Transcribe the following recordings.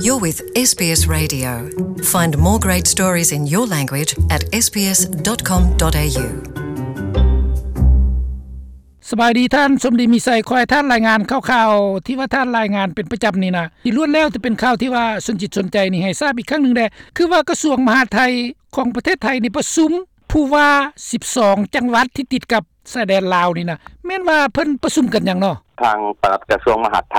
You're with SBS Radio. Find more great stories in your language at sbs.com.au. ສະບາຍດີທ່ານ ສົມດີມີໄຊ. ຂໍໃຫ້ທ່ານລາຍງານຂ່າວໆ ທີ່ວ່າທ່ານລາຍງານເປັນປະຈຳນີ້ນະ ທີ່ລ້ວນແລ້ວແຕ່ເປັນຂ່າວທີ່ວ່າສົນຈິດສົນໃຈນີ້ ໃຫ້ຊາບອີກຄັ້ງໜຶ່ງແດ່ ຄືວ່າກະຊວງມະຫາດໄທຂອງປະເທດໄທນີ້ປະຊຸມຜູ້ວ່າສິບສອງຈັງຫວັດທີ່ຕິດກັບຊາຍແດນລາວນີ້ນະ ແມ່ນວ່າເພິ່ນປະຊຸມກັນຫຍັງເນາະ? ທາງປະຫຼັດກະຊວງມະຫາດໄທ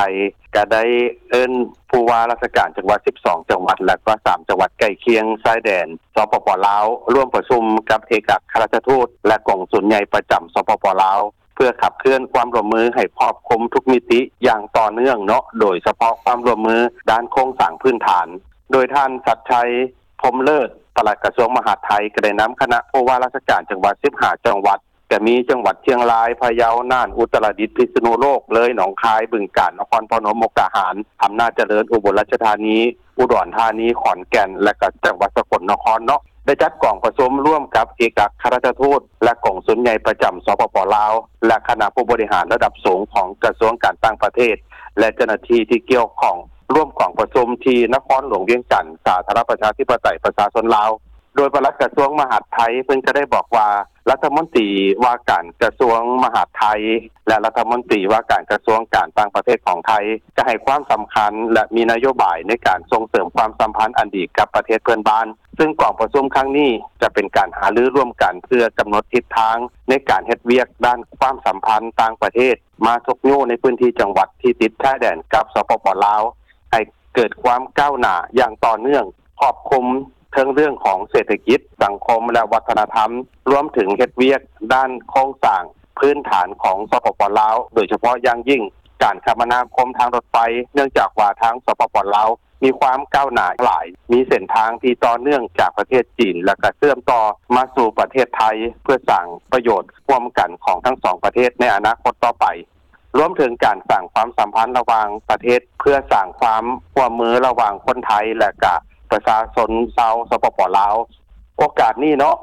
ກະໄດ້ເອີ້ນຜູ້ວ່າລາຊະການຈັງຫວັດສິບສອງຈັງຫວັດ ແລະກະສາມຈັງຫວັດໃກ້ຄຽງຊາຍແດນ ສປປ ລາວ ຮ່ວມປະຊຸມກັບເອກອັກຄະລັດຖະທູດ ແລະ ກົງສຸນໃຫຍ່ປະຈຳ ສປປ ລາວ ເພື່ອຂັບເຄື່ອນຄວາມຮ່ວມມືໃຫ້ຄອບຄຸມທຸກມິຕິຢ່າງຕໍ່ເນື່ອງເນາະ ໂດຍສະເພາະຄວາມຮ່ວມມືດ້ານໂຄງສ້າງພື້ນຖານ. ໂດຍທ່ານ ສັດໄຊ ພົມເລີດ ປະຫຼັດກະຊວງມະຫາດໄທ ກະໄດ້ນຳຄະນະຜູ້ວ່າລາຊະການຈັງຫວັດສິບຫ້າຈັງຫວັດ ກະມີຈັງຫວັດຊຽງລາຍ, ພະເຍົາ, ນ່ານ, ອຸດຕະລະດິດ, ພິສະນຸໂລກ, ເລີຍ, ໜອງຄາຍ, ບຶງການ, ນະຄອນພະນົມ, ມຸກດາຫານ, ອຳນາດຈະເລີນ, ອຸບົນລາຊະທານີ, ອຸດອນທານີ, ຂອນແກ່ນ ແລະ ກະຈັງຫວັດສະກົນນະຄອນເນາະ ໄດ້ຈັດກອງປະຊຸມຮ່ວມກັບເອກອັກຄະລັດຖະທູດ ແລະ ກົງສຸນໃຫຍ່ປະຈຳ ສປປ ລາວ ແລະ ຄະນະຜູ້ບໍລິຫານລະດັບສູງຂອງກະຊວງການຕ່າງປະເທດ ແລະ ເຈົ້າໜ້າທີ່ທີ່ກ່ຽວຂ້ອງ ຮ່ວມກອງປະຊຸມທີ່ນະຄອນຫຼວງວຽງຈັນ ສາທາລະນະລັດປະຊາທິປະໄຕປະຊາຊົນລາວ. ໂດຍປະຫຼັດກະຊວງມະຫາດໄທ ເພິ່ນກະໄດ້ບອກວ່າ ລັດຖະມົນຕີວ່າການກະຊວງມະຫາດໄທ ແລະ ລັດຖະມົນຕີວ່າການກະຊວງການຕ່າງປະເທດຂອງໄທ ກະໃຫ້ຄວາມສຳຄັນ ແລະ ມີນະໂຍບາຍໃນການສົ່ງເສີມຄວາມສຳພັນອັນດີກັບປະເທດເພື່ອນບ້ານ. ຊຶ່ງກອງປະຊຸມຄັ້ງນີ້ຈະເປັນການຫາລືຮ່ວມກັນເພື່ອກຳນົດທິດທາງໃນການເຮັດວຽກດ້ານຄວາມສຳພັນຕ່າງປະເທດ ມາຊຸກຍູ້ໃນພື້ນທີ່ຈັງຫວັດທີ່ຕິດຊາຍແດນກັບ ສປປ ລາວ ໃຫ້ເກີດຄວາມກ້າວໜ້າຢ່າງຕໍ່ເນື່ອງ ຄອບຄຸມເຖິງເລື່ອງຂອງເສດຖະກິດ, ສັງຄົມ ແລະ ວັດທະນະທຳ, ລວມເຖິງເຮັດວຽກດ້ານໂຄງສ້າງພື້ນຖານຂອງ ສປປ ລາວ ໂດຍສະເພາະຢ່າງຍິ່ງການຄະມະນາຄົມທາງລົດໄຟ ເນື່ອງຈາກວ່າທາງ ສປປ ລາວ ມີຄວາມກ້າວໜ້າຫຼາຍ, ມີເສັ້ນທາງທີ່ຕໍ່ເນື່ອງຈາກປະເທດຈີນ ແລະ ກະເຊື່ອມຕໍ່ມາສູ່ປະເທດໄທ ເພື່ອສ້າງປະໂຫຍດຮ່ວມກັນຂອງທັງສອງປະເທດໃນອະນາຄົດຕໍ່ໄປ. ລວມເຖິງການສ້າງຄວາມສຳພັນລະຫວ່າງປະເທດ ເພື່ອສ້າງຄວາມຮ່ວມມືລະຫວ່າງຄົນໄທ ແລະ ກະປະຊາຊົນຊາວ ສປປ ລາວ. ໂອກາດນີ້ເນາະ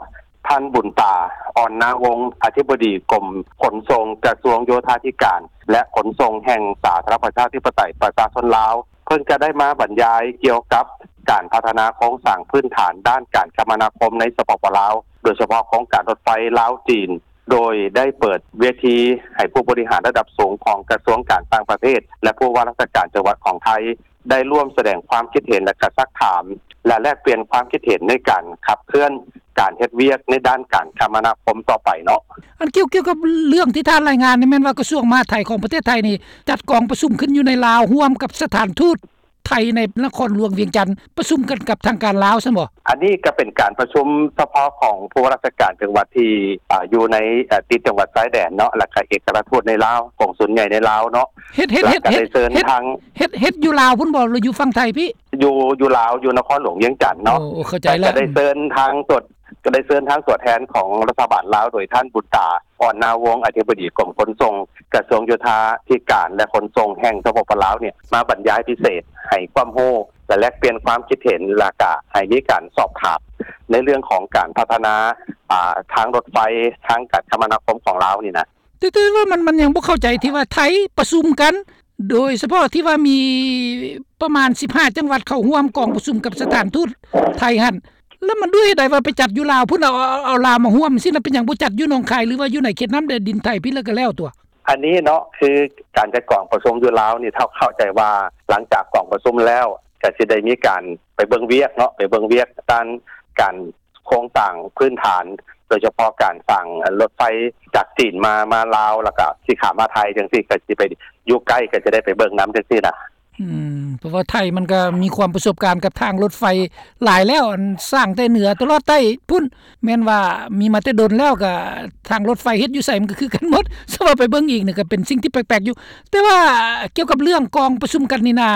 ທ່ານ ບຸນຕາ ອ່ອນນາວົງ ອະທິບໍດີກົມຂົນສົ່ງ ກະຊວງໂຍທາທິການ ແລະ ຂົນສົ່ງແຫ່ງສາທາລະນະລັດປະຊາທິປະໄຕປະຊາຊົນລາວ ເພິ່ນກະໄດ້ມາບັນຍາຍກ່ຽວກັບການພັດທະນາໂຄງສ້າງພື້ນຖານດ້ານການຄະມະນາຄົມໃນ ສປປ ລາວ ໂດຍສະເພາະໂຄງການລົດໄຟລາວ-ຈີນ ໂດຍໄດ້ເປີດເວທີໃຫ້ຜູ້ບໍລິຫານລະດັບສູງຂອງກະຊວງການຕ່າງປະເທດ ແລະ ຜູ້ວ່າລາຊະການຈັງຫວັດຂອງໄທ ໄດ້ຮ່ວມສະແດງຄວາມຄິດເຫັນ ແລະ ກະຊັກຖາມ ແລະ ແລກປ່ຽນຄວາມຄິດເຫັນໃນການຂັບເຄື່ອນການເຮັດວຽກໃນດ້ານການຄະມະນາຄົມຕໍ່ໄປເນາະ. ອັນກ່ຽວ ກ່ຽວກັບເລື່ອງທີ່ທ່ານລາຍງານນີ້ ແມ່ນວ່າກະຊວງມະຫາດໄທຂອງປະເທດໄທນີ້ ຈັດກອງປະຊຸມຂຶ້ນຢູ່ໃນລາວ ຮ່ວມກັບສະຖານທູດ ໄທໃນນະຄອນຫຼວງວຽງຈັນ ປະຊຸມກັນກັບທາງການລາວຊັ້ນບໍ? ອັນນີ້ກະເປັນການປະຊຸມສະເພາະຂອງຜູ້ວ່າລາຊະການຈັງຫວັດທີ່ ອາ ຢູ່ໃນ ອາ ຕິດຈັງຫວັດຊາຍແດນເນາະ ແລະ ກະເອກອັກຄະລັດທູດໃນລາວ ກົງສຸນໃຫຍ່ໃນລາວເນາະ. ເຮັດ ເຮັດ ເຮັດ ເຮັດ ເຮັດ ເຮັດຢູ່ລາວພຸ້ນບໍ ຫຼື ຢູ່ຝັ່ງໄທພີ້? ຢູ່ ຢູ່ລາວ ຢູ່ນະຄອນຫຼວງວຽງຈັນເນາະ. ໂອ້ ເຂົ້າໃຈແລ້ວ. ກະໄດ້ເຊີນທາງຕົວ ກະໄດ້ເຊີນທາງຕົວແທນຂອງລັດຖະບານລາວ ໂດຍທ່ານ ບຸນຕາ ອ່ອນນາວົງ ອະທິບໍດີກົມຂົນສົ່ງ ກະຊວງໂຍທາທິການ ແລະ ຂົນສົ່ງແຫ່ງ ສປປ ລາວ ເນຍ ມາບັນຍາຍພິເສດ ໃຫ້ຄວາມຮູ້ ແລະ ແລກປ່ຽນຄວາມຄິດເຫັນ ແລະ ກະໃຫ້ມີການສອບຖາມໃນເລື່ອງຂອງການພັດທະນາ ອາ ທາງລົດໄຟ ທາງການຄະມະນາຄົມຂອງລາວນີ້ນະ. ແຕ່ ແຕ່ວ່າມັນ ມັນຍັງບໍ່ເຂົ້າໃຈທີ່ວ່າໄທປະຊຸມກັນ ໂດຍສະເພາະທີ່ວ່າມີປະມານສິບຫ້າຈັງຫວັດເຂົ້າຮ່ວມກອງປະຊຸມກັບສະຖານທູດໄທຫັ້ນ ແລ້ວມັນດ້ວຍເຫດໃດວ່າໄປຈັດຢູ່ລາວພຸ້ນ ເອົາ ເອົາ ເອົາລາວມາຮ່ວມຊີ້ນະ ເປັນຫຍັງບໍ່ຈັດຢູ່ໜອງຄາຍ ຫຼືວ່າຢູ່ໃນເຂດນ້ຳແດນດິນໄທພີ້ ແລ້ວກະແລ້ວຕົວະ? ອັນນີ້ເນາະ ຄືການຈັດກອງປະຊຸມຢູ່ລາວນີ້ ເຮົາເຂົ້າໃຈວ່າຫຼັງຈາກກອງປະຊຸມແລ້ວ ກະຊິໄດ້ມີການໄປເບິ່ງວຽກເນາະ ໄປເບິ່ງວຽກດ້ານການ ໂຄງສ້າງພື້ນຖານ ໂດຍສະເພາະການສ້າງລົດໄຟຈາກຈີນມາ ມາລາວ ແລ້ວກະຊິຂ້າມມາໄທຈັ່ງຊີ້ ກະຊິໄປຢູ່ໃກ້ ກະຈະໄດ້ໄປເບິ່ງນຳຈັ່ງຊີ້ນະ. ອືມ ເພາະວ່າໄທມັນກະມີຄວາມປະສົບການກັບທາງລົດໄຟຫຼາຍແລ້ວ ອັນສ້າງແຕ່ເໜືອຕະຫຼອດໃຕ້ພຸ້ນ ແມ່ນວ່າມີມາແຕ່ດົນແລ້ວ ກະທາງລົດໄຟເຮັດຢູ່ໃສມັນກະຄືກັນໝົດ ສະວ່າໄປເບິ່ງອີກນີ້ກະເປັນສິ່ງທີ່ແປກໆຢູ່. ແຕ່ວ່າກ່ຽວກັບເລື່ອງກອງປະຊຸມກັນນີ້ນາ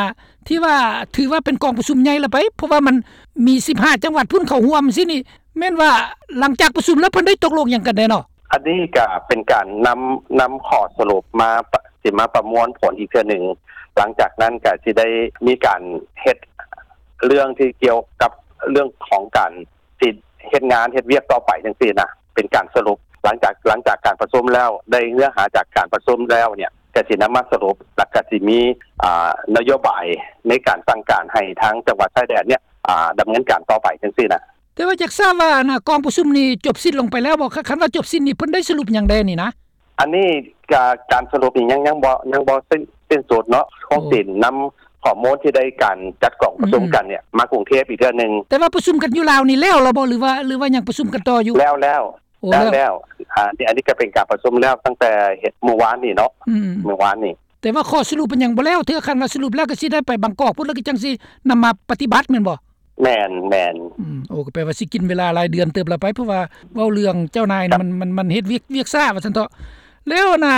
ທີ່ວ່າຖືວ່າເປັນກອງປະຊຸມໃຫຍ່ລະໄປ ເພາະວ່າມັນມີສິບຫ້າຈັງຫວັດພຸ້ນເຂົ້າຮ່ວມຊີ້ນີ້ ແມ່ນວ່າຫຼັງຈາກປະຊຸມແລ້ວເພິ່ນໄດ້ຕົກລົງຫຍັງກັນແດ່ເນາະ? ອັນນີ້ກະເປັນການນຳ ນຳຂໍ້ສະຫຼຸບມາ ປະ ຊິມາປະມວນຜົນອີກເທື່ອໜຶ່ງ ຫຼັງຈາກນັ້ນກະຊິໄດ້ມີການເຮັດເລື່ອງທີ່ກ່ຽວກັບເລື່ອງຂອງການຊິເຮັດງານເຮັດວຽກຕໍ່ໄປຈັ່ງຊີ້ນະ ເປັນການສະຫຼຸບ ຫຼັງຈາກ ຫຼັງຈາກການປະຊຸມແລ້ວ ໄດ້ເນື້ອຫາຈາກການປະຊຸມແລ້ວເນຍ ກະຊິນຳມາສະຫຼຸບ ແລະກະຊິມີ ອ່າ ນະໂຍບາຍໃນການສັ່ງການໃຫ້ທາງຈັງຫວັດຊາຍແດນເນຍ ອ່າ ດຳເນີນການຕໍ່ໄປຈັ່ງຊີ້ນະ. ແຕ່ວ່າຢາກຊາບວ່າ ອັນນ່າ ກອງປະຊຸມນີ້ຈົບສິ້ນລົງໄປແລ້ວບໍ່? ຄັນວ່າຈົບສິ້ນນີ້ເພິ່ນໄດ້ສະຫຼຸບຫຍັງແດ່ນີ້ນະ? ອັນນີ້ກະ ການສະຫຼຸບນີ້ຍັງ ຍັງບໍ່ ຍັງບໍ່ສິ້ນ ສິ້ນສຸດເນາະ. ໂອ້ ຄົງຊິນຳຂໍ້ມູນທີ່ໄດ້ການຈັດກອງປະຊຸມ ອືມ ກັນເນຍ ມາກຸງເທບອີກເທື່ອໜຶ່ງ. ແຕ່ວ່າປະຊຸມກັນຢູ່ລາວນີ້ແລ້ວແລ້ວບໍ່ ຫຼືວ່າ ຫຼືວ່າຍັງປະຊຸມກັນຕໍ່ຢູ່? ແລ້ວແລ້ວ ໂອ້ ແລ້ວແລ້ວ ແລ້ວ ອ່າ ນີ້ ອັນນີ້ກະເປັນການປະຊຸມແລ້ວຕັ້ງແຕ່ມື້ວານນີ້ເນາະ ອືມ ມື້ວານນີ້. ແຕ່ວ່າຂໍ້ສະຫຼຸບມັນຍັງບໍ່ແລ້ວເທື່ອ. ຄັນວ່າສະຫຼຸບແລ້ວກະຊິໄດ້ໄປບາງກອກພຸ້ນ ແລ້ວກະຈັ່ງຊິນຳມາປະຕິບັດແມ່ນບໍ່? ແມ່ນ ແມ່ນ. ອືມ ໂອ້ ກະແປວ່າຊິກິນເວລາຫຼາຍເດືອນເຕີບລະໄປ ເພາະວ່າເວົ້າເລື່ອງເຈົ້ານາຍນີ້ ມັນ ມັນ ມັນເຮັດວຽກ ວຽກຊ້າວ່າຊັ້ນເຖາະ. ແລ້ວນະ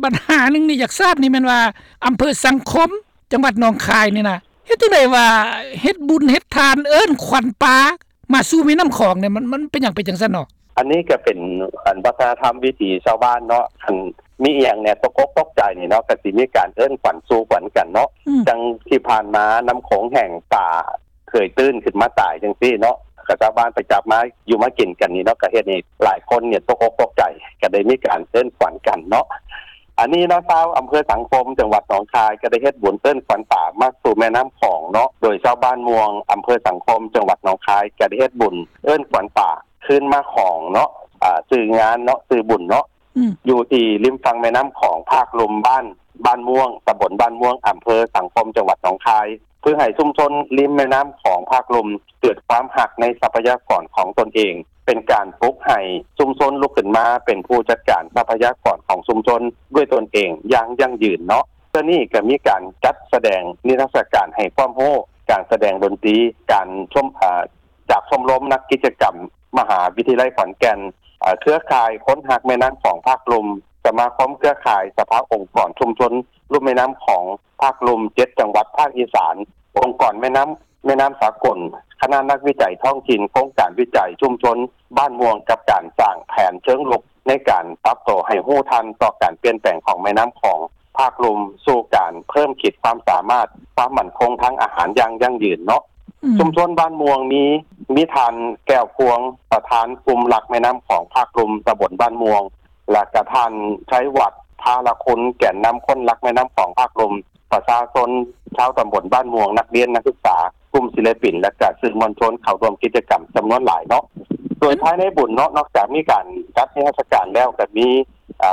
ບັນຫາໜຶ່ງນີ້ຢາກຊາບນີ້ແມ່ນວ່າ ອຳເພີສັງຄົມ ຈັງຫວັດໜອງຄາຍນີ້ນະ ເຮັດຈັ່ງໃດວ່າເຮັດບຸນເຮັດທານເອີ້ນຂວັນປາ ມາສູ່ແມ່ນ້ຳຂອງນີ້ ມັນ ມັນເປັນຫຍັງເປັນຈັ່ງຊັ້ນເນາະ? ອັນນີ້ກະເປັນ ອັນ ວັດທະນະທຳວິຖີຊາວບ້ານເນາະ. ຄັນມີອີ່ຫຍັງເນຍ ຕົກອົກຕົກໃຈນີ້ເນາະ ກະຊິມີການເອີ້ນຂວັນສູ່ຂວັນກັນເນາະ. ອືມ ຈັ່ງທີ່ຜ່ານມານ້ຳໂຂງແຫ້ງ ປາເຄີຍຕື້ນຂຶ້ນມາຕາຍຈັ່ງຊີ້ເນາະ ກະຊາວບ້ານໄປຈັບມາຢູ່ມາກິນກັນນີ້ເນາະ ກະເຮັດໃຫ້ຫຼາຍຄົນເນຍຕົກອົກຕົກໃຈ ກະໄດ້ມີການເອີ້ນຂວັນກັນເນາະ. ອັນນີ້ເນາະ ຊາວອຳເພີສັງຄົມ ຈັງຫວັດໜອງຄາຍ ກະໄດ້ເຮັດບຸນເອີ້ນຂວັນປາມາສູ່ແມ່ນ້ຳຂອງເນາະ ໂດຍຊາວບ້ານມ່ວງ ອຳເພີສັງຄົມ ຈັງຫວັດໜອງຄາຍ ກະໄດ້ເຮັດບຸນເອີ້ນຂວັນປາຄືນມາຂອງເນາະ. ອ່າ ຊື່ງານເນາະ ຊື່ບຸນເນາະ ອືມ ຢູ່ທີ່ລິມຝັ່ງແມ່ນ້ຳຂອງພາກລຸ່ມ ບ້ານ ບ້ານມ່ວງ ຕຳບົນບ້ານມ່ວງ ອຳເພີສັງຄົມ ຈັງຫວັດໜອງຄາຍ ເພື່ອໃຫ້ຊຸມຊົນລິມແມ່ນ້ຳຂອງພາກລຸ່ມເກີດຄວາມຮັກໃນຊັບພະຍາກອນຂອງຕົນເອງ ເປັນການປຸກໃຫ້ຊຸມຊົນລຸກຂຶ້ນມາເປັນຜູ້ຈັດການຊັບພະຍາກອນຂອງຊຸມຊົນດ້ວຍຕົນເອງຢ່າງຢັ້ງຢືນເນາະ. ເທື່ອນີ້ກະມີການຈັດສະແດງນິທັດສະການໃຫ້ຄວາມຮູ້ ການສະແດງດົນຕີ ການຊົມ ເອີ ຈາກຊົມລົມນັກກິດຈະກຳມະຫາວິທະຍາໄລຂອນແກ່ນ, ເອີ ເຄືອຂ່າຍຄົນຮັກແມ່ນ້ຳຂອງພາກລຸ່ມ, ສະມາຄົມເຄືອຂ່າຍສະພາອົງກອນຊຸມຊົນລຸ່ມແມ່ນ້ຳຂອງພາກລຸ່ມ ເຈັດ ຈັງຫວັດພາກອີສານ, ອົງກອນແມ່ນ້ຳ ແມ່ນ້ຳສາກົນ, ຄະນະນັກວິໄຈທ້ອງຖິ່ນ, ໂຄງການວິໄຈຊຸມຊົນບ້ານມ່ວງ ກັບການສ້າງແຜນເຊີງລຸກໃນການປັບໂຕໃຫ້ຮູ້ທັນຕໍ່ການປ່ຽນແປງຂອງແມ່ນ້ຳຂອງພາກລຸ່ມ ສູ່ການເພີ່ມຂີດຄວາມສາມາດຄວາມໝັ້ນຄົງທາງອາຫານຢ່າງຢັ້ງຢືນເນາະ. ອືມ ຊຸມຊົນບ້ານມ່ວງມີ ມີທ່ານ ແກ້ວພວງ ປະທານກຸ່ມລັກແມ່ນ້ຳຂອງພາກລຸ່ມຕຳບົນບ້ານມ່ວງ ແລະກະທ່ານ ໄຊວັດ ທາລະຄຸນ ແກນນຳຄົນລັກແມ່ນ້ຳຂອງພາກລຸ່ມ, ປະຊາຊົນຊາວຕຳບົນບ້ານມ່ວງ, ນັກຮຽນ, ນັກສຶກສາ, ກຸ່ມສິລະປິນ ແລະກະສື່ມວນຊົນເຂົ້າຮ່ວມກິດຈະກຳຈຳນວນຫຼາຍເນາະ. ໂດຍພາຍໃນບຸນເນາະ ນອກຈາກມີການຈັດນິທັດສະການແລ້ວ ກະມີ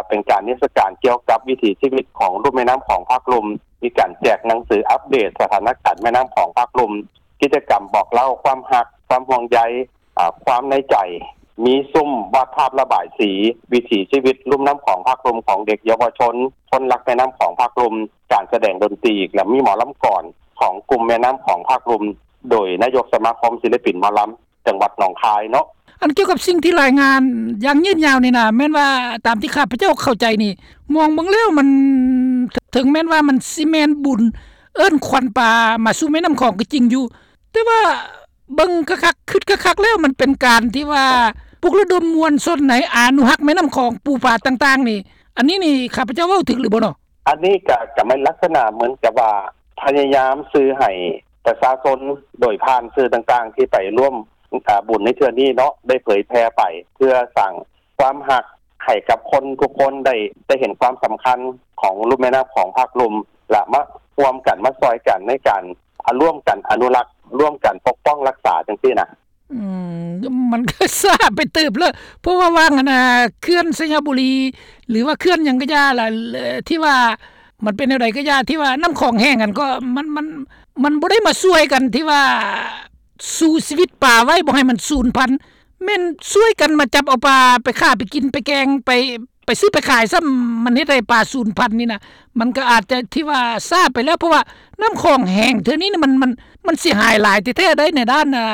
ເປັນການນິທັດສະການກ່ຽວກັບວິຖີຊີວິດຂອງລຸ່ມແມ່ນ້ຳຂອງພາກລຸ່ມ, ມີການແຈກໜັງສືອັບເດດສະຖານະການແມ່ນ້ຳຂອງພາກລຸ່ມ, ກິດຈະກຳບອກເລົ່າຄວາມຮັກ, ຄວາມຫ່ວງໃຍ, ຄວາມໃນໃຈ, ມີຊຸມວາດພາບລະບາຍສີ, ວິຖີຊີວິດລຸ່ມນ້ຳຂອງພາກລຸ່ມຂອງເດັກເຍົາວະຊົນ, ຄົນລັກແມ່ນ້ຳຂອງພາກລຸ່ມ, ການສະແດງດົນຕີ ແລະມີໝໍລຳກອນຂອງກຸ່ມແມ່ນ້ຳຂອງພາກລຸ່ມ ໂດຍນາຍົກສະມາຄົມສິລະປິນໝໍລຳ ຈັງຫວັດໜອງຄາຍເນາະ. ອັນກ່ຽວກັບສິ່ງທີ່ລາຍງານຢ່າງຍືດຍາວນີ້ນະ ແມ່ນວ່າຕາມທີ່ຂ້າພະເຈົ້າເຂົ້າໃຈນີ້ ມອງເບິ່ງແລ້ວມັນ ເຖິງແມ່ນວ່າມັນຊິແມ່ນບຸນເອີ້ນຂວັນປາມາສູ່ແມ່ນ້ຳຂອງກໍຈິງຢູ່ ແຕ່ວ່າເບິ່ງຄັກໆ ຄຶດຄັກໆແລ້ວ ມັນເປັນການທີ່ວ່າປຸກລະດົມມວນຊົນໃນອະນຸຮັກແມ່ນ້ຳຂອງ ປູປາຕ່າງໆນີ້ ອັນນີ້ນີ້ຂ້າພະເຈົ້າເວົ້າຖືກຫຼືບໍ່ເນາະ? ອັນນີ້ກະ ກະແມ່ນລັກສະນະເໝືອນກັບວ່າ ພະຍາຍາມສື່ໃຫ້ປະຊາຊົນໂດຍຜ່ານສື່ຕ່າງໆທີ່ໄປຮ່ວມ ອາ ບຸນໃນເທື່ອນີ້ເນາະ ໄດ້ເຜີຍແຜ່ໄປ ເພື່ອສ້າງຄວາມຮັກໃຫ້ກັບຄົນທຸກຄົນໄດ້ ໄດ້ເຫັນຄວາມສຳຄັນຂອງລຸ່ມແມ່ນ້ຳຂອງພາກລຸ່ມ ແລະ ມາຮ່ວມກັນ ມາຊ່ອຍກັນໃນການ ອາ ຮ່ວມກັນອະນຸລັກ ຮ່ວມກັນປົກປ້ອງຮັກສາຈັ່ງຊີ້ນະ. ອືມ ມັນກໍຊ້າໄປເຕີບແລ້ວ ເພາະວ່າວ່າງອັນນ່າ ເຂື່ອນໄຊຍະບູລີ ຫຼືວ່າເຂື່ອນຫຍັງກໍຢ່າລະ ທີ່ວ່າມັນເປັນແນວໃດກໍຢ່າ ທີ່ວ່ານ້ຳຂອງແຫ້ງຫັ້ນ ກໍມັນ ມັນ ມັນບໍ່ໄດ້ມາຊ່ວຍກັນທີ່ວ່າ ສູ້ຊີວິດປາໄວ້ບໍ່ໃຫ້ມັນສູນພັນ ແມ່ນຊ່ວຍກັນມາຈັບເອົາປາໄປຂ້າ ໄປກິນ ໄປແກງ ໄປ ໄປຊື້ໄປຂາຍຊ້ຳ ມັນເຮັດໃຫ້ປາສູນພັນນີ້ນະ ມັນກໍອາດຈະທີ່ວ່າຊ້າໄປແລ້ວ ເພາະວ່ານ້ຳຂອງແຫ້ງເທື່ອນີ້ນະ ມັນ ມັນ ມັນເສຍຫາຍຫຼາຍແທ້ໆໃດ໋ ໃນດ້ານ ອ່າ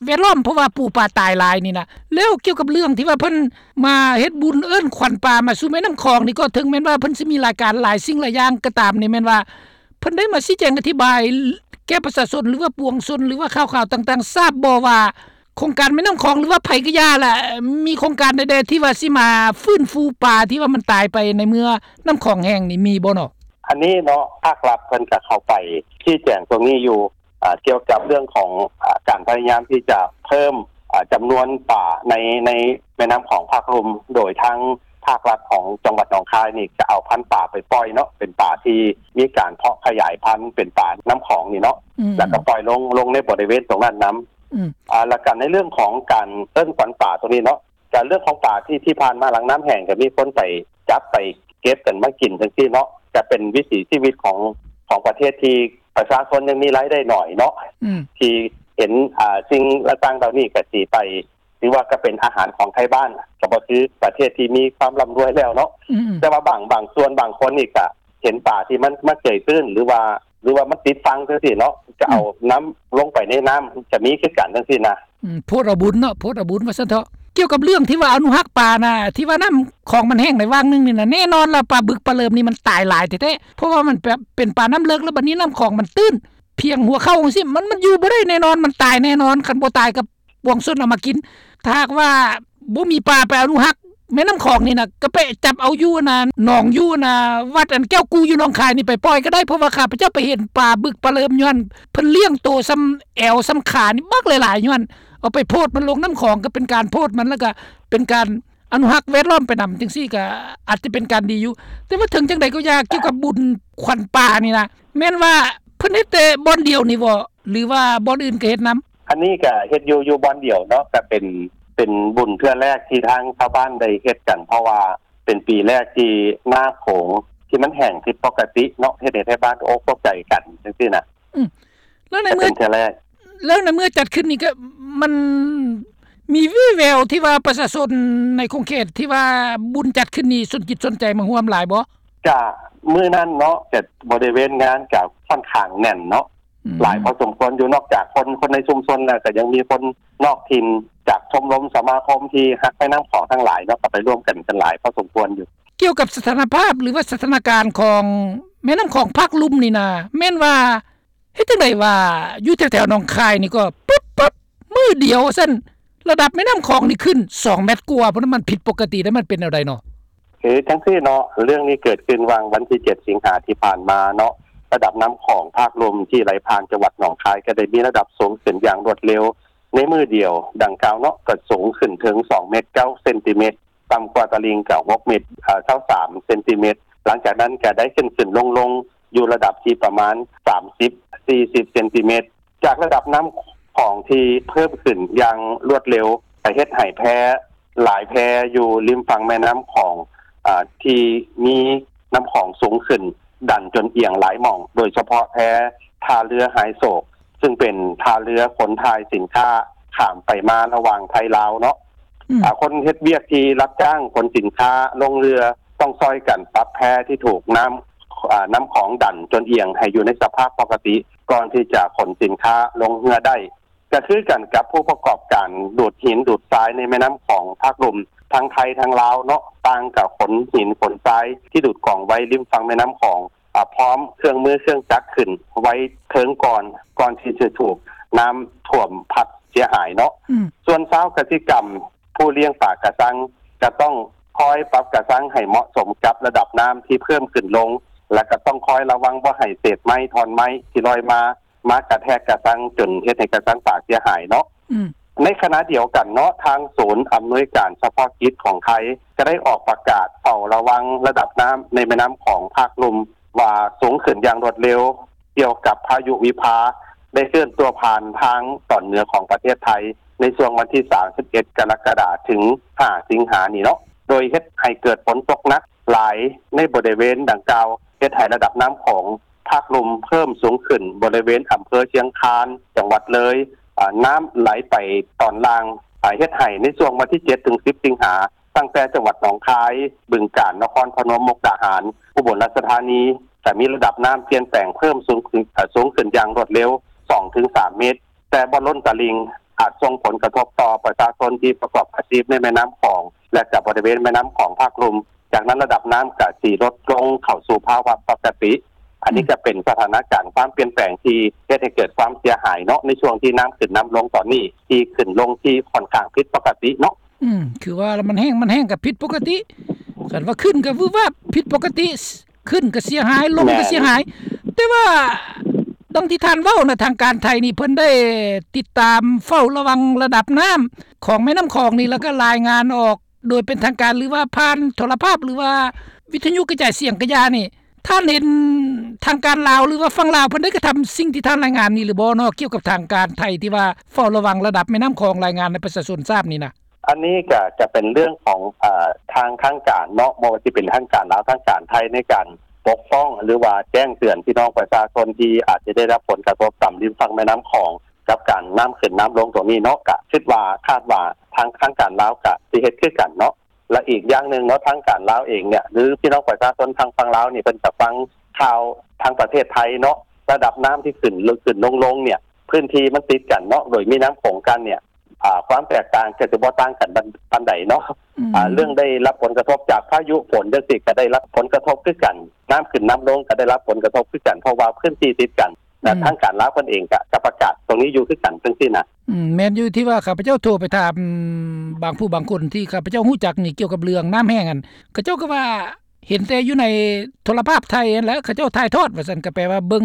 ແວດລ້ອມ ເພາະວ່າປູປາຕາຍຫຼາຍນີ້ນະ. ແລ້ວກ່ຽວກັບເລື່ອງທີ່ວ່າເພິ່ນມາເຮັດບຸນເອີ້ນຂວັນປາມາສູ່ແມ່ນ້ຳຂອງນີ້ ກໍເຖິງແມ່ນວ່າເພິ່ນຊິມີລາຍການຫຼາຍສິ່ງຫຼາຍຢ່າງກໍຕາມນີ້ ແມ່ນວ່າເພິ່ນໄດ້ມາຊີ້ແຈງອະທິບາຍແກ່ປະຊາຊົນ ຫຼືວ່າປວງຊົນ ຫຼືວ່າຂ່າວໆຕ່າງໆ ຊາບບໍ່ວ່າ ໂຄງການແມ່ນ້ຳຂອງ ຫຼືວ່າໃຜກໍຢ່າລະ ມີໂຄງການໃດໆທີ່ວ່າຊິມາຟື້ນຟູປາທີ່ວ່າມັນຕາຍໄປໃນເມື່ອນ້ຳຂອງແຫ້ງນີ້ ມີບໍ່ເນາະ? ອັນນີ້ເນາະ ພາກລັດເພິ່ນກະເຂົ້າໄປຊີ້ແຈງຕົງນີ້ຢູ່ ອາ ກ່ຽວກັບເລື່ອງຂອງ ອາ ການພະຍາຍາມທີ່ຈະເພີ່ມ ອາ ຈຳນວນປາໃນ ໃນແມ່ນ້ຳຂອງພາກລຸ່ມ ໂດຍທາງ ພາກລັດຂອງຈັງຫວັດໜອງຄາຍນີ້ ຈະເອົາພັນປາໄປປ່ອຍເນາະ ເປັນປາທີ່ມີການເພາະຂະຫຍາຍພັນ ເປັນປານ້ຳຂອງນີ້ເນາະ ອືມ ແລ້ວກໍປ່ອຍລົງ ລົງໃນບໍລິເວນຕົງນັ້ນນຳ ອືມ ອ່າ ແລ້ວກໍໃນເລື່ອງຂອງການເອີ້ນຂວັນປາຕົງນີ້ເນາະ ການເລື່ອງຂອງປາທີ່ ທີ່ຜ່ານມາຫຼັງນ້ຳແຫ້ງ ກໍມີຄົນໄປຈັບໄປເກັບກັນມາກິນຈັ່ງຊີ້ເນາະ ກະເປັນວິຖີຊີວິດຂອງ ຂອງປະເທດທີ່ປະຊາຊົນຍັງມີລາຍໄດ້ໜ້ອຍເນາະ ອືມ ທີ່ເຫັນ ອ່າ ສິ່ງຕ່າງໆເຫຼົ່ານີ້ກະຊິໄປ ຖືວ່າກະເປັນອາຫານຂອງໄທບ້ານ ກະບໍ່ຄືປະເທດທີ່ມີຄວາມລ່ຳລວຍແລ້ວເນາະ ອືມ ແຕ່ວ່າບາງ ບາງສ່ວນບາງຄົນນີ້ກະເຫັນປາທີ່ມັນ ມັນເກຍຕື້ນ ຫຼືວ່າ ຫຼືວ່າມັນຕິດຝັ່ງຈັ່ງຊີ້ເນາະ ກະເອົາ ອືມ ນຳລົງໄປໃນນ້ຳ ກະມີຄືກັນຈັ່ງຊີ້ນະ. ອືມ ໂພດເອົາບຸນເນາະ ໂພດເອົາບຸນວ່າຊັ້ນເຖາະ. ກ່ຽວກັບເລື່ອງທີ່ວ່າອະນຸຮັກປານະ ທີ່ວ່ານ້ຳຂອງມັນແຫ້ງໃນຫວ່າງໜຶ່ງນີ້ນະ ແນ່ນອນລະປາບຶກປາເລີມນີ້ມັນຕາຍຫຼາຍແທ້ໆ ເພາະວ່າມັນແບບເປັນປານ້ຳເລິກ ແລ້ວບັດນີ້ນ້ຳຂອງມັນຕື້ນ ພຽງຫົວເຂົ່າຈັ່ງຊີ້ ມັນ ມັນຢູ່ບໍ່ໄດ້ແນ່ນອນ ມັນຕາຍແນ່ນອນ ຄັນບໍ່ຕາຍກໍປວງຊົນເອົາມາກິນ. ຖ້າຫາກວ່າບໍ່ມີປາໄປອະນຸຮັກແມ່ນ້ຳຂອງນີ້ນະ ກໍໄປຈັບເອົາຢູ່ອັນນ່າ ໜອງຢູ່ອັນນ່າ ວັດອັນແກ້ວກູຢູ່ໜອງຄາຍນີ້ໄປປ່ອຍກໍໄດ້ ເພາະວ່າຂ້າພະເຈົ້າໄປເຫັນປາບຶກປາເລີມ ຍ້ອນເພິ່ນລ້ຽງໂຕສ່ຳແອວສ່ຳຂານີ້ບັກຫຼາຍໆ ຍ້ອນ ເອົາໄປໂພດມັນລົງນ້ຳຂອງ ກໍເປັນການໂພດມັນ ແລ້ວກໍເປັນການອະນຸຮັກແວດລ້ອມໄປນຳ ຈັ່ງຊີ້ກໍອາດຈະເປັນການດີຢູ່. ແຕ່ວ່າເຖິງຈັ່ງໃດກໍຢ່າ ກ່ຽວກັບບຸນຂວັນປານີ້ນະ ແມ່ນວ່າເພິ່ນເຮັດແຕ່ບ່ອນດຽວນີ້ບໍ່ ຫຼືວ່າບ່ອນອື່ນກໍເຮັດນຳ? ອັນນີ້ກໍເຮັດຢູ່ ຢູ່ບ່ອນດຽວເນາະ ກໍເປັນ ເປັນບຸນເທື່ອແລກທີ່ທາງຊາວບ້ານໄດ້ເຮັດກັນ ເພາະວ່າເປັນປີແລກທີ່ນ້ຳໂຂງທີ່ມັນແຫ້ງຜິດປົກກະຕິເນາະ ເຮັດໃຫ້ໄທບ້ານຕົກອົກຕົກໃຈກັນຈັ່ງຊີ້ນະ. ອືມ ແລ້ວໃນເມື່ອ ເປັນເທື່ອແລກ ແລ້ວໃນເມື່ອຈັດຂຶ້ນນີ້ກໍມັນມີວີ່ແວວທີ່ວ່າປະຊາຊົນໃນຂົງເຂດທີ່ວ່າບຸນຈັດຂຶ້ນນີ້ສົນຈິດສົນໃຈມາຮ່ວມຫຼາຍບໍ່? ກະມື້ນັ້ນເນາະ ກະບໍລິເວນງານກະຂ້ອນຂ້າງແໜ້ນເນາະ ອືມ ຫຼາຍພໍສົມຄວນຢູ່ ນອກຈາກຄົນ ຄົນໃນຊຸມຊົນແລ້ວ ກະຍັງມີຄົນນອກຖິ່ນ ຈາກຊົມລົມສະມາຄົມທີ່ຮັກແມ່ນ້ຳຂອງທັງຫຼາຍເນາະ ກໍໄປຮ່ວມກັນ ກັນຫຼາຍພໍສົມຄວນຢູ່. ກ່ຽວກັບສະຖານະພາບ ຫຼືວ່າສະຖານະການຂອງແມ່ນ້ຳຂອງພາກລຸ່ມນີ້ນະ ແມ່ນວ່າ ເຮັດຈັ່ງໃດວ່າຢູ່ແຖວໆໜອງຄາຍນີ້ກໍປຶບໆ ມື້ດຽວວ່າຊັ້ນ ລະດັບແມ່ນ້ຳຂອງນີ້ຂຶ້ນສອງແມັດກວ່າພຸ້ນ ມັນຜິດປົກກະຕິ ແລ້ວມັນເປັນແນວໃດເນາະ? ຄືຈັ່ງຊີ້ເນາະ ເລື່ອງນີ້ເກີດຂຶ້ນຫວ່າງວັນທີເຈັດສິງຫາທີ່ຜ່ານມາເນາະ ລະດັບນ້ຳຂອງພາກລຸ່ມທີ່ໄຫຼຜ່ານຈັງຫວັດໜອງຄາຍ ກໍໄດ້ມີລະດັບສູງຂຶ້ນຢ່າງລວດເລັວໃນມື້ດຽວດັ່ງກ່າວເນາະ ກໍສູງຂຶ້ນເຖິງສອງແມັດເກົ້າເຊັນຕີແມັດ ຕ່ຳກວ່າຕະລິ່ງກໍຫົກແມັດ ເອີ ຊາວສາມເຊັນຕີແມັດ ຫຼັງຈາກນັ້ນກໍໄດ້ຂຶ້ນໆລົງໆ ຢູ່ລະດັບທີ່ປະມານສາມສິບ ສີ່ສິບເຊັນຕີແມັດ ຈາກລະດັບນ້ຳຂອງທີ່ເພີ່ມຂຶ້ນຢ່າງລວດເລັວ ກໍເຮັດໃຫ້ແພຫຼາຍແພຢູ່ລິມຝັ່ງແມ່ນ້ຳຂອງ ອາ ທີ່ມີນ້ຳຂອງສູງຂຶ້ນ ດັນຈົນອຽງຫຼາຍໝ່ອງ ໂດຍສະເພາະແພທ່າເຮືອຫາຍໂສກ ຊຶ່ງເປັນທ່າເຮືອຂົນຖ່າຍສິນຄ້າຂ້າມໄປມາລະຫວ່າງໄທລາວເນາະ ອືມ ອາ ຄົນເຮັດວຽກທີ່ຮັບຈ້າງຂົນສິນຄ້າລົງເຮືອ ຕ້ອງຊ່ອຍກັນປັບແພທີ່ຖືກນ້ຳ ອາ ນ້ຳຂອງດັນຈົນອຽງໃຫ້ຢູ່ໃນສະພາບປົກກະຕິ ກ່ອນທີ່ຈະຂົນສິນຄ້າລົງເຮືອໄດ້. ກໍຄືກັນກັບຜູ້ປະກອບການດູດຫີນດູດຊາຍໃນແມ່ນ້ຳຂອງພາກລຸ່ມ ທັງໄທທັງລາວເນາະ ຕ່າງກໍຂົນຫີນຂົນຊາຍທີ່ດູດກອງໄວ້ລິມຝັ່ງແມ່ນ້ຳຂອງ ອາ ພ້ອມເຄື່ອງມືເຄື່ອງຈັກຂຶ້ນໄວ້ເທິງກ່ອນ ກ່ອນທີ່ຈະຖືກນ້ຳຖ້ວມພັດເສຍຫາຍເນາະ ອືມ ສ່ວນຊາວກະສິກຳ ຜູ້ລ້ຽງປາກະຊັງ ກະຕ້ອງຄອຍປັບກະຊັງໃຫ້ເໝາະສົມກັບລະດັບນ້ຳທີ່ເພີ່ມຂຶ້ນລົງ ແລະ ກະຕ້ອງຄອຍລະວັງບໍ່ໃຫ້ເສດໄມ້ທ່ອນໄມ້ທີ່ລອຍມາ ມາກະແທກກະຊັງ ຈົນເຮັດໃຫ້ກະຊັງປາກເສຍຫາຍເນາະ ອືມ ໃນຂະນະດຽວກັນເນາະ ທາງສູນອຳນວຍການສະເພາະກິດຂອງໄທ ກະໄດ້ອອກປະກາດເຝົ້າລະວັງລະດັບນ້ຳໃນແມ່ນ້ຳຂອງພາກລຸ່ມ ວ່າສູງຂຶ້ນຢ່າງລວດເລັວ ກ່ຽວກັບພາຍຸວິພາ ໄດ້ເຄື່ອນຕົວຜ່ານທາງຕອນເໜືອຂອງປະເທດໄທ ໃນຊ່ວງວັນທີສາມສິບເອັດ ກໍລະກະດາ ເຖິງ ຫ້າ ສິງຫານີ້ເນາະ ໂດຍເຮັດໃຫ້ເກີດຝົນຕົກໜັກຫຼາຍໃນບໍລິເວນດັ່ງກ່າວ ເຮັດໃຫ້ລະດັບນ້ຳຂອງພາກລຸ່ມເພີ່ມສູງຂຶ້ນ ບໍລິເວນອຳເພີຊຽງຄານ ຈັງຫວັດເລີຍ ອາ ນ້ຳໄຫຼໄປຕອນລ່າງ ອາ ເຮັດໃຫ້ໃນຊ່ວງວັນທີເຈັດ ເຖິງ ສິບ ສິງຫາ ຕັ້ງແຕ່ຈັງຫວັດໜອງຄາຍ, ບຶງການ, ນະຄອນພະນົມ, ມຸກດາຫານ, ອຸບົນລາຊະທານີ ຈະມີລະດັບນ້ຳປ່ຽນແປງເພີ່ມສູງຂຶ້ນ ເອີ ສູງຂຶ້ນຢ່າງລວດເລັວ ສອງເຖິງສາມເມັດ ແຕ່ບໍ່ລົ້ນຕະລິ່ງ ອາດສົ່ງຜົນກະທົບຕໍ່ປະຊາຊົນທີ່ປະກອບອາຊີບໃນແມ່ນ້ຳຂອງ ແລະ ກະບໍລິເວນແມ່ນ້ຳຂອງພາກລຸ່ມ. ຈາກນັ້ນລະດັບນ້ຳກະຊິລົດລົງເຂົ້າສູ່ພາວະປົກກະຕິ. ອັນນີ້ ອືມ ກະເປັນສະຖານະການຄວາມປ່ຽນແປງທີ່ເຮັດໃຫ້ເກີດຄວາມເສຍຫາຍເນາະ ໃນຊ່ວງທີ່ນ້ຳຂຶ້ນນ້ຳລົງຕອນນີ້ ທີ່ຂຶ້ນລົງທີ່ຂ້ອນຂ້າງຜິດປົກກະຕິເນາະ. ອືມ ຄືວ່າລະມັນແຫ້ງ ມັນແຫ້ງກໍຜິດປົກກະຕິ ຄັນວ່າຂຶ້ນກໍວືບວາບ ຜິດປົກກະຕິ ຂຶ້ນກໍເສຍຫາຍ ລົງກໍເສຍຫາຍ ແມ່ນ ແຕ່ວ່າດັ່ງທີ່ທ່ານເວົ້ານະ ທາງການໄທນີ້ເພິ່ນໄດ້ຕິດຕາມເຝົ້າລະວັງລະດັບນ້ຳຂອງແມ່ນ້ຳຂອງນີ້ ແລ້ວກໍລາຍງານອອກ ໂດຍເປັນທາງການ ຫຼືວ່າຜ່ານໂທລະພາບ ຫຼືວ່າວິທະຍຸກະຈາຍສຽງກະຢ່ານີ້ ທ່ານເຫັນທາງການລາວ ຫຼືວ່າຝັ່ງລາວເພິ່ນໄດ້ກະທຳສິ່ງທີ່ທ່ານລາຍງານນີ້ຫຼືບໍ່ເນາະ ກ່ຽວກັບທາງການໄທທີ່ວ່າເຝົ້າລະວັງລະດັບແມ່ນ້ຳຂອງ ລາຍງານໃຫ້ປະຊາຊົນຊາບນີ້ນະ? ອັນນີ້ກະຈະເປັນເລື່ອງຂອງ ເອີ ທາງ ທາງການເນາະ ບໍ່ວ່າຊິເປັນທາງການລາວ ທາງການໄທ ໃນການປົກປ້ອງ ຫຼືວ່າແຈ້ງເຕືອນພີ່ນ້ອງປະຊາຊົນທີ່ອາດຈະໄດ້ຮັບຜົນກະທົບຕາມລິມຝັ່ງແມ່ນ້ຳຂອງ ກັບການນ້ຳຂຶ້ນນ້ຳລົງຕົງນີ້ເນາະ ກະຄິດວ່າ ຄາດວ່າທາງ ທາງການລາວກະຊິເຮັດຄືກັນເນາະ. ແລະ ອີກຢ່າງໜຶ່ງເນາະ ທາງການລາວເອງເນຍ ຫຼື ພີ່ນ້ອງປະຊາຊົນທາງຝັ່ງລາວນີ້ ເພິ່ນກະຟັງຂ່າວທາງປະເທດໄທເນາະ ລະດັບນ້ຳທີ່ຂຶ້ນ ຂຶ້ນລົງ ລົງເນຍ ພື້ນທີ່ມັນຕິດກັນເນາະ ໂດຍມີນ້ຳຂອງກັນເນຍ ອາ ຄວາມແຕກຕ່າງກະຊິບໍ່ຕ່າງກັນປານໃດເນາະ. ອືມ ອາ ເລື່ອງໄດ້ຮັບຜົນກະທົບຈາກພາຍຸຝົນຈັ່ງຊີ້ ກະໄດ້ຮັບຜົນກະທົບຄືກັນ ນ້ຳຂຶ້ນນ້ຳລົງກະໄດ້ຮັບຜົນກະທົບຄືກັນ ເພາະວ່າພື້ນທີ່ຕິດກັນ ແລະ ອືມ ທາງການລາວເພິ່ນເອງກະ ກະປະກາດຕົງນີ້ຢູ່ຄືກັນ ຈັ່ງຊີ້ນະ. ອືມ ແມ່ນຢູ່ ທີ່ວ່າຂ້າພະເຈົ້າໂທໄປຖາມບາງຜູ້ບາງຄົນທີ່ຂ້າພະເຈົ້າຮູ້ຈັກນີ້ ກ່ຽວກັບເລື່ອງນ້ຳແຫ້ງຫັ້ນ ເຂົາເຈົ້າກະວ່າເຫັນແຕ່ຢູ່ໃນໂທລະພາບໄທຫັ້ນແຫຼະ ເຂົາເຈົ້າຖ່າຍທອດວ່າຊັ້ນ ກະແປວ່າເບິ່ງ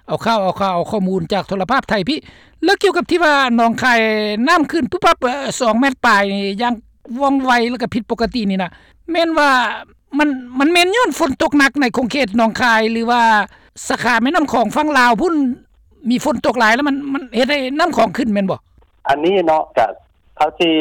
ເອົາຂ່າວ ເອົາຂ່າວ ເອົາຂໍ້ມູນຈາກໂທລະພາບໄທພີ້. ແລ້ວກ່ຽວກັບທີ່ວ່າໜອງຄາຍນ້ຳຂຶ້ນປຸບປັບ ເອີ ສອງແມັດປາຍນີ້ ຢ່າງວ່ອງໄວ ແລ້ວກະຜິດປົກກະຕິນີ້ນະ ແມ່ນວ່າ ມັນ ມັນແມ່ນຍ້ອນຝົນຕົກໜັກໃນຂົງເຂດໜອງຄາຍ ຫຼືວ່າສາຂາແມ່ນ້ຳຂອງຝັ່ງລາວພຸ້ນ ມີຝົນຕົກຫຼາຍແລ້ວມັນ ມັນເຮັດໃຫ້ນ້ຳຂອງຂຶ້ນແມ່ນບໍ່? ອັນນີ້ເນາະ ກະເທົ່າທີ່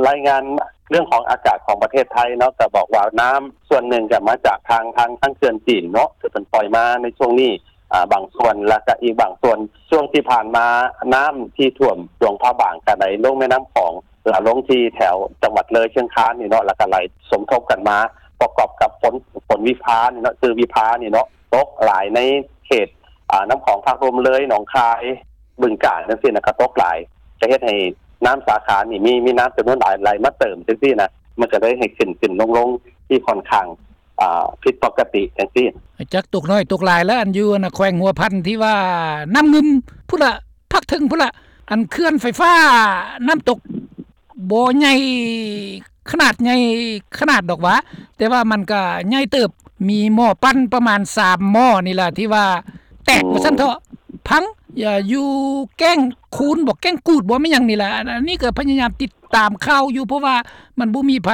ລາຍງານເລື່ອງຂອງອາກາດຂອງປະເທດໄທເນາະ ກະບອກວ່ານ້ຳສ່ວນໜຶ່ງກະມາຈາກທາງ ທາງ ທາງເຂື່ອນຈີນເນາະ ທີ່ເພິ່ນປ່ອຍມາໃນຊ່ວງນີ້ ອາ ບາງສ່ວນ ແລ້ວກະອີກບາງສ່ວນ ຊ່ວງທີ່ຜ່ານມານ້ຳທີ່ຖ້ວມຫຼວງພະບາງກະໄຫຼລົງແມ່ນ້ຳຂອງ ລະລົງທີ່ແຖວຈັງຫວັດເລີຍ ຊຽງຄານນີ້ເນາະ ລະກະໄຫຼສົມທົບກັນມາ ປະກອບກັບຝົນ ຝົນວິພານີ້ເນາະ ຄືວິພານີ້ເນາະ ຕົກຫຼາຍໃນເຂດ ອາ ນ້ຳຂອງພາກລຸ່ມເລີຍ ໜອງຄາຍ ບຶງການ ຈັ່ງຊີ້ນະ ກະຕົກຫຼາຍ ກະເຮັດໃຫ້ນ້ຳສາຂານີ້ ມີ ມີນ້ຳຈຳນວນຫຼາຍ ໄຫຼມາເຕີມຈັ່ງຊີ້ນະ ມັນກະເລີຍໃຫ້ຂຶ້ນ ຂຶ້ນລົງ ລົງທີ່ຂ້ອນຂ້າງ ອາ ຜິດປົກກະຕິຈັ່ງຊີ້. ຈັກຕົກໜ້ອຍຕົກຫຼາຍລະ ອັນຢູ່ ອັນນະ ແຂວງຫົວພັນທີ່ວ່ານ້ຳງື່ມພຸ້ນລະ ພາກເທິງພຸ້ນລະ ອັນເຂື່ອນໄຟຟ້ານ້ຳຕົກບໍ່ໃຫຍ່ ຂະໜາດໃຫຍ່ຂະໜາດດອກຫວາ ແຕ່ວ່າມັນກະໃຫຍ່ເຕີບ ມີໝໍ້ປັ່ນປະມານສາມໝໍ້ນີ້ລະ ທີ່ວ່າແຕກ ອືມ ວ່າຊັ້ນເຖາະ ພັງ ຢູ່ແກ້ງຄູນບໍ ແກ້ງກູດບໍ ແມ່ນຫຍັງນີ້ລະ. ອັນນີ້ກະພະຍາຍາມຕິດຕາມຂ່າວຢູ່ ເພາະວ່າມັນບໍ່ມີໃຜ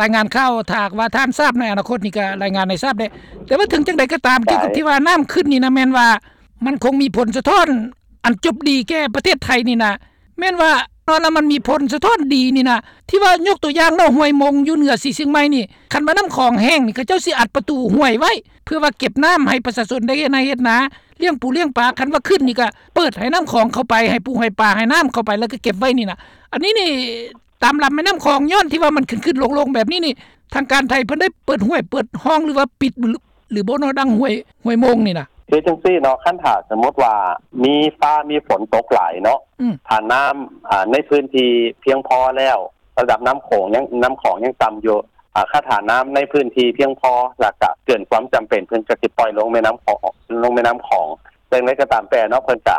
ລາຍງານຂ່າວ ຖ້າຫາກວ່າທ່ານຊາບໃນອະນາຄົດນີ້ກະລາຍງານໃຫ້ຊາບແດ່. ແຕ່ວ່າເຖິງຈັ່ງໃດກະຕາມ ກ່ຽວກັບທີ່ວ່ານ້ຳຂຶ້ນນີ້ນະ ແມ່ນວ່າມັນຄົງມີຜົນສະທ້ອນອັນຈົບດີແກ່ປະເທດໄທນີ້ນະ ແມ່ນວ່າ ເນາະ ລະມັນມີຜົນສະທ້ອນດີນີ້ນະ ທີ່ວ່າຍົກຕົວຢ່າງເນາະ ຫ້ວຍມົງຢູ່ເໜືອສີຊຽງໃໝ່ນີ້ ຄັນວ່ານ້ຳຂອງແຫ້ງນີ້ ເຂົາເຈົ້າຊິອັດປະຕູຫ້ວຍໄວ້ ເພື່ອວ່າເກັບນ້ຳໃຫ້ປະຊາຊົນໄດ້ເຮັດໄຮ່ເຮັດນາ ລ້ຽງປູລ້ຽງປາ ຄັນວ່າຂຶ້ນນີ້ກະເປີດໃຫ້ນ້ຳຂອງເຂົ້າໄປ ໃຫ້ປູໃຫ້ປາ ໃຫ້ນ້ຳເຂົ້າໄປ ລະກະເກັບໄວ້ນີ້ນະ. ອັນນີ້ນີ້ ຕາມລຳແມ່ນ້ຳຂອງ ຍ້ອນທີ່ວ່າມັນຂຶ້ນໆລົງໆແບບນີ້ນີ້ ທາງການໄທເພິ່ນໄດ້ເປີດຫ້ວຍເປີດຮ່ອງ ຫຼືວ່າປິດ ຫຼືບໍ່ເນາະ ດັ່ງຫ້ວຍ ຫ້ວຍມົງນີ້ນະ? ຄືຈັ່ງຊີ້ເນາະ ຄັນຖ້າສົມມຸດວ່າມີຟ້າມີຝົນຕົກຫຼາຍເນາະ ອືມ ຖ້ານ້ຳ ອາ ໃນພື້ນທີ່ພຽງພໍແລ້ວ ລະດັບນ້ຳໂຂງຍັງ ນ້ຳຂອງຍັງຕ່ຳຢູ່ ອາ ຄັນຖ້ານ້ຳໃນພື້ນທີ່ພຽງພໍ ລະກະເກີນຄວາມຈຳເປັນ ເພິ່ນກະຊິປ່ອຍລົງແມ່ນ້ຳຂອງ ລົງແມ່ນ້ຳຂອງ. ແຕ່ຢ່າງໃດກະຕາມແຕ່ເນາະ ເພິ່ນກະ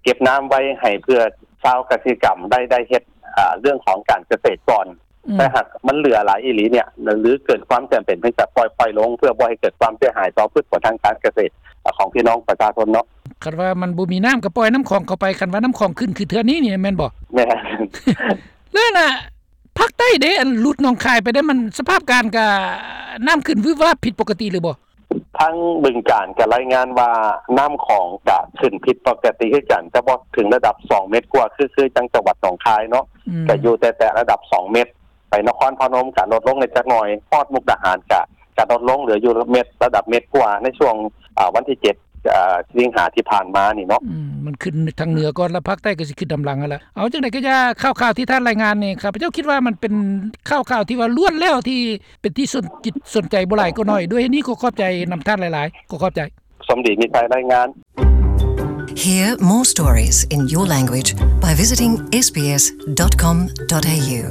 ເກັບນ້ຳໄວ້ໃຫ້ເພື່ອຊາວກະສິກຳໄດ້ ໄດ້ເຮັດ ອາ ເລື່ອງຂອງການກະເສດກ່ອນ ອືມ ແຕ່ຫາກມັນເຫຼືອຫຼາຍອີ່ຫຼີເນຍ ຫຼືເກີນຄວາມຈຳເປັນ ເພິ່ນກະປ່ອຍ ປ່ອຍລົງ ເພື່ອບໍ່ໃຫ້ເກີດຄວາມເສຍຫາຍຕໍ່ພືດຜົນທາງການກະເສດຂອງພີ່ນ້ອງປະຊາຊົນເນາະ. ຄັນວ່າມັນບໍ່ມີນ້ຳກະປ່ອຍນ້ຳຂອງເຂົ້າໄປ ຄັນວ່ານ້ຳຂອງຂຶ້ນຄືເທື່ອນີ້ນີ້ແມ່ນບໍ່? ແມ່ນ. ແລ້ວນະ ພາກໃຕ້ເດ ອັນຫຼຸດໜອງຄາຍໄປເດ ມັນສະພາບການກະ ນ້ຳຂຶ້ນວືບວາບຜິດປົກກະຕິຫຼືບໍ່? ທາງບຶງການກະລາຍງານວ່ານ້ຳຂອງກະຂຶ້ນຜິດປົກກະຕິຄືກັນ ແຕ່ບໍ່ເຖິງລະດັບສອງເມັດກວ່າ ຄື ຄືຈັ່ງຈັງຫວັດໜອງຄາຍເນາະ ອືມ ກະຢູ່ແຕ່ ແຕ່ລະດັບສອງເມັດ ໄປນະຄອນພະນົມກະລົດລົງໄດ້ຈັກໜ່ອຍ ຮອດມຸກດາຫານກະ ກະລົດລົງເຫຼືອຢູ່ເມັດ ລະດັບເມັດກວ່າ ໃນຊ່ວງ ອາ ວັນທີເຈັດ ອາ ສິງຫາທີ່ຜ່ານມານີ້ເນາະ. ອືມ ມັນຂຶ້ນທາງເໜືອກ່ອນ ລະພາກໃຕ້ກະຊິຂຶ້ນນຳຫຼັງຫັ້ນລະ. ເອົາ ຈັ່ງໃດກະຢ່າ ຂ່າວໆທີ່ທ່ານລາຍງານນີ້ ຂ້າພະເຈົ້າຄິດວ່າມັນເປັນຂ່າວໆທີ່ວ່າລ້ວນແລ້ວທີ່ ເປັນທີ່ສົນຈິດສົນໃຈບໍ່ຫຼາຍກໍໜ້ອຍ. ດ້ວຍເຫດນີ້ຂໍຂອບໃຈນຳທ່ານຫຼາຍໆ. ຂໍຂອບໃຈ. ສົມດີມີໄຊລາຍງານ. Hear more stories in your language by visiting S B S dot com dot A U.